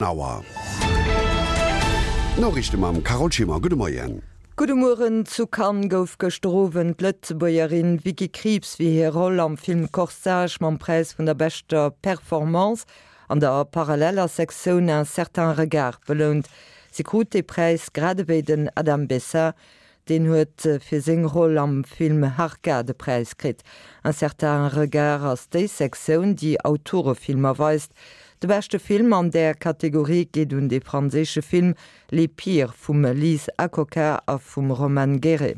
Auer. D'Noriichte mam Carole Schimmer. Gudde Moien. Gudde Mueren. Zu Cannes gouf gëschter Owend d'Lëtzebuergerin Vicky Krieps fir hir Roll am Film Corsage mam Präis vun der beschter Performance an der paralleller Sektioun Un certain regard belount. Si krut dee Präis grad ewéi den Adam Bessa, Deen huet fir seng Roll am Film Harka de Präis kritt. Un certain regard ass déi Sektioun, déi Autorefilmer weist. De beschte Film an där Kategorie geet un de franséische Film Les Pires vum Lise Akoka a vum Romane Guéret.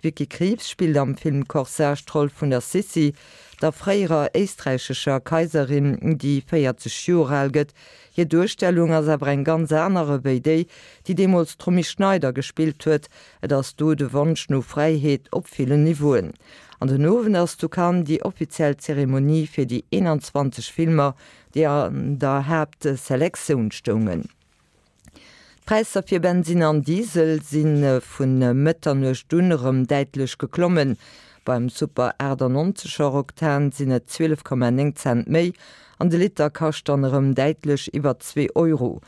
D'Vicky Krieps spillt am Film Corsage d'Roll vun der Sissi, der fréierer éisträichescher Kaiserin, déi 40 Joer al gëtt. Hir Duerstellung ass awer eng ganz aner ewéi déi, déi deemools d'Romy Schneider gespillt huet. Et ass do de Wonsch no Fräiheet op villen Niveauen. An den Owend ass zu Cannes déi offiziell Zeremonie fir déi 21 Filmer, déi an der Haaptselektioun stoungen. D'Präisser fir Bensinn an Diesel si vu Mëtternuecht un erëm däitlech geklommen. Beim Super 98 er Oktan sinn et 12,9 Cent méi an de Liter kascht dann erëm däitlech iwwer zwee Euro.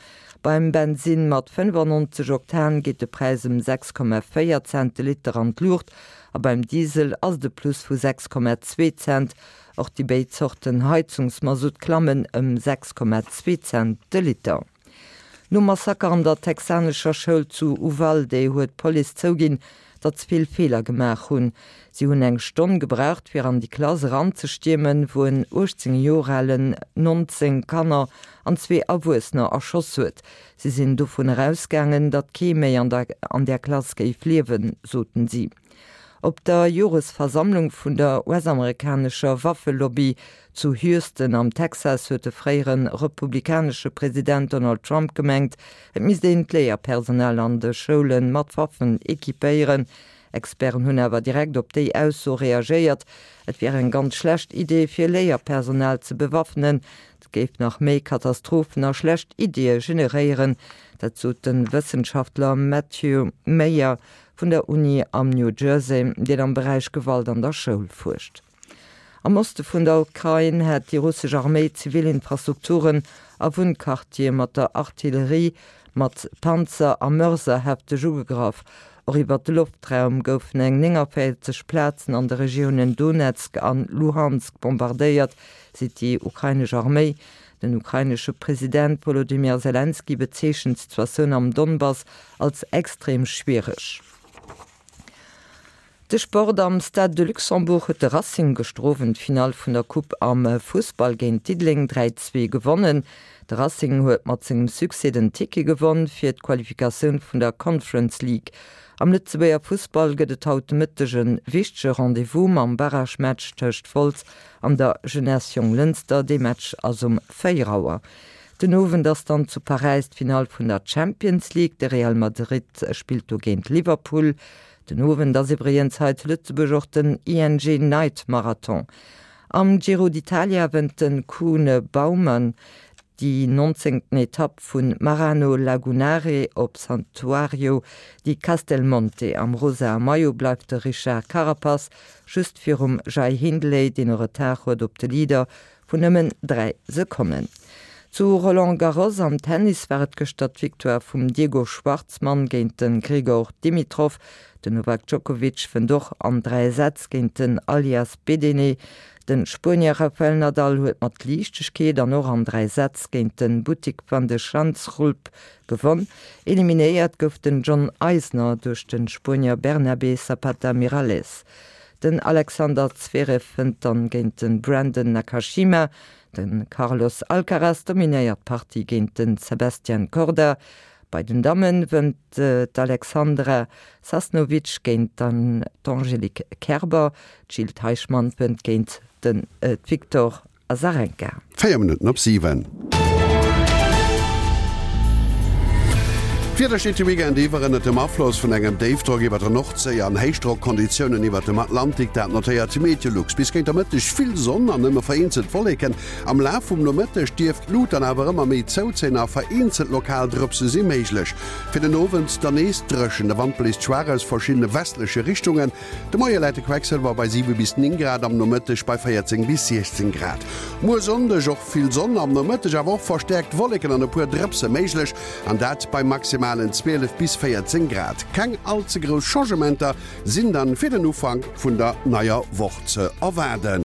Beim Bensinn mat 95 Oktan geet de Präis ëm 6,4 Cent de Liter an d'Luucht a beim Diesel ass et e Plus vu 6,2 Cent. Och déi béid Zorten Heizungsmasutt klammen ëm 6,2 Cent de Liter. Nom Massaker an der texanescher Schoul zu Uvalde huet d'Police zouginn, datt se vill Feeler gemaach hunn. Si hunn eng Stonn gebraucht, fir an déi Klass eranzestiermen, wou en 18 Joer alen 19 Kanner an zwee Erwuessener erschoss huet. Si sinn dovun erausgaangen, datt kee méi an der an där Klass géif liewen, soten si. Op der Joresversammlung vun der US-amerikanescher Waffelobby zu Houston am Texas huet de fréiere republikanesche President Donald Trump gemengt, et misst een d'Léierpersonal an de Schoule mat Waffen equipéieren. Experten hunn awer direkt op déi Ausso reagéiert. Et wier eng ganz schlecht Idee fir Léierpersonal ze bewaffnen. Et géif nach méi Katastrophen a schlecht Iddie generéieren. Dat sot de Wëssenschaftler Matthew Meyer vun der Uni am New Jersey, deen am Beräich Gewalt an der Schoul fuerscht. Am Oste vun der Ukrain hätt déi russesch Arméi zivil Infrastrukturen a Wunnquartiere mat der Artillerie, mat Panzer a Mörser hefteg ugegraff. Och iwwer de Loftraum goufen eng 49 Plazen an de Regiounen Donezk an Luhansk bombardéiert, seet déi ukrainesch Arméi. Den ukrainesche President Wolodymyr Selenskyj bezeechent d'Situatioun am Donbass als extrem schwiereg. De Sport, Am Stade de Luxembourg huet de Racing gëschter Owend d'Finall vun der Coupe am Fussball géint Diddeleng 3, 2 gewonnen. De Racing huet mat sengem Succès den Ticket gewonn fir d'Qualifikatioun vun der Conference League. Am Lëtzebuerger Fussball gëtt et haut de Mëtteg e wichtege Rendez-vous mam Barragematch tëscht Wolz an der Jeunesse Jonglënster. Dee Match ass um 4 Auer. Den Owend ass dann zu Paräis d'Finall vun der Champions League. De Real Madrid spillt do géint Liverpool. Den Owend ass iwwregens hei zu Lëtzebuerg och den ING Night Marathon. Am Giro d'Italia wënnt de Koen Bouwman déi nonzéngten Etapp vu Marano Lagunare op Santuario di Castelmonte. Am rosae Maillot bleift de Richard Carapaz just virum Jai Hindley, deen e Retard huet op de Leader Vun nëmmen 3 Sekonnen. Zu Roland Garros am Tennis war et gëschter d'Victoire vum Diego Schwartzman géint de Grigor Dimitrov. Den Novak Djokovic wënnt och an 3 Sätz géint den Alias Bedene. De Spuenier Rafael Nadal huet mat Liichtegkeet an och an 3 Sätz géint de Botic van de Schanzschulp gewonn. Eliminéiert gouf den John Isner duerch de Spuenier Bernabé Zapata Miralles. Den Alexander Zverev wënnt dann géint de Brandon Nakashima. De Carlos Alcaraz dominéiert d'Partie géint de Sebastian Korda. Bei den Damme wënnt d'Alexandra Sasnovic géint d'Angelique Kerber. D'Jil Teichmann wënnt géint de Victor Azarenka. 4 Minutten op 7. D'Wieder steet de Weekend iwwer ënnert dem Afloss vun engem Déifdrock iwwer der Nordséi an HéichdrockKonditiounen iwwert dem Atlantik. Dat notéiert Meteolux. Bis géint der Mëtteg vill Sonn an nëmme vereenzelt Wolleken. Am Laf vum Nomëtteg dierft d'Lut dann awer ëmmer méi zouzéien a vereenzelt lokal Drëpse si méiglech. Fir den Owend dann nees dréchen, de Wand bléist schwaach aus verschiddene westleche Richtungen. De Moie läit de Quecksëlwer bei 7 bis 9 Grad, am Nomëtteg bei 14 bis 16 Grad. Muer Sonndeg och vill Sonn, am Nomëtteg awer och verstäerkt Wolleken an e puer Drëpse méiglech, an dat bei maximalen 12 bis 14 Grad. Keng all ze grouss Changementer sinn dann fir den Ufank vun der neier Woch ze erwaarden.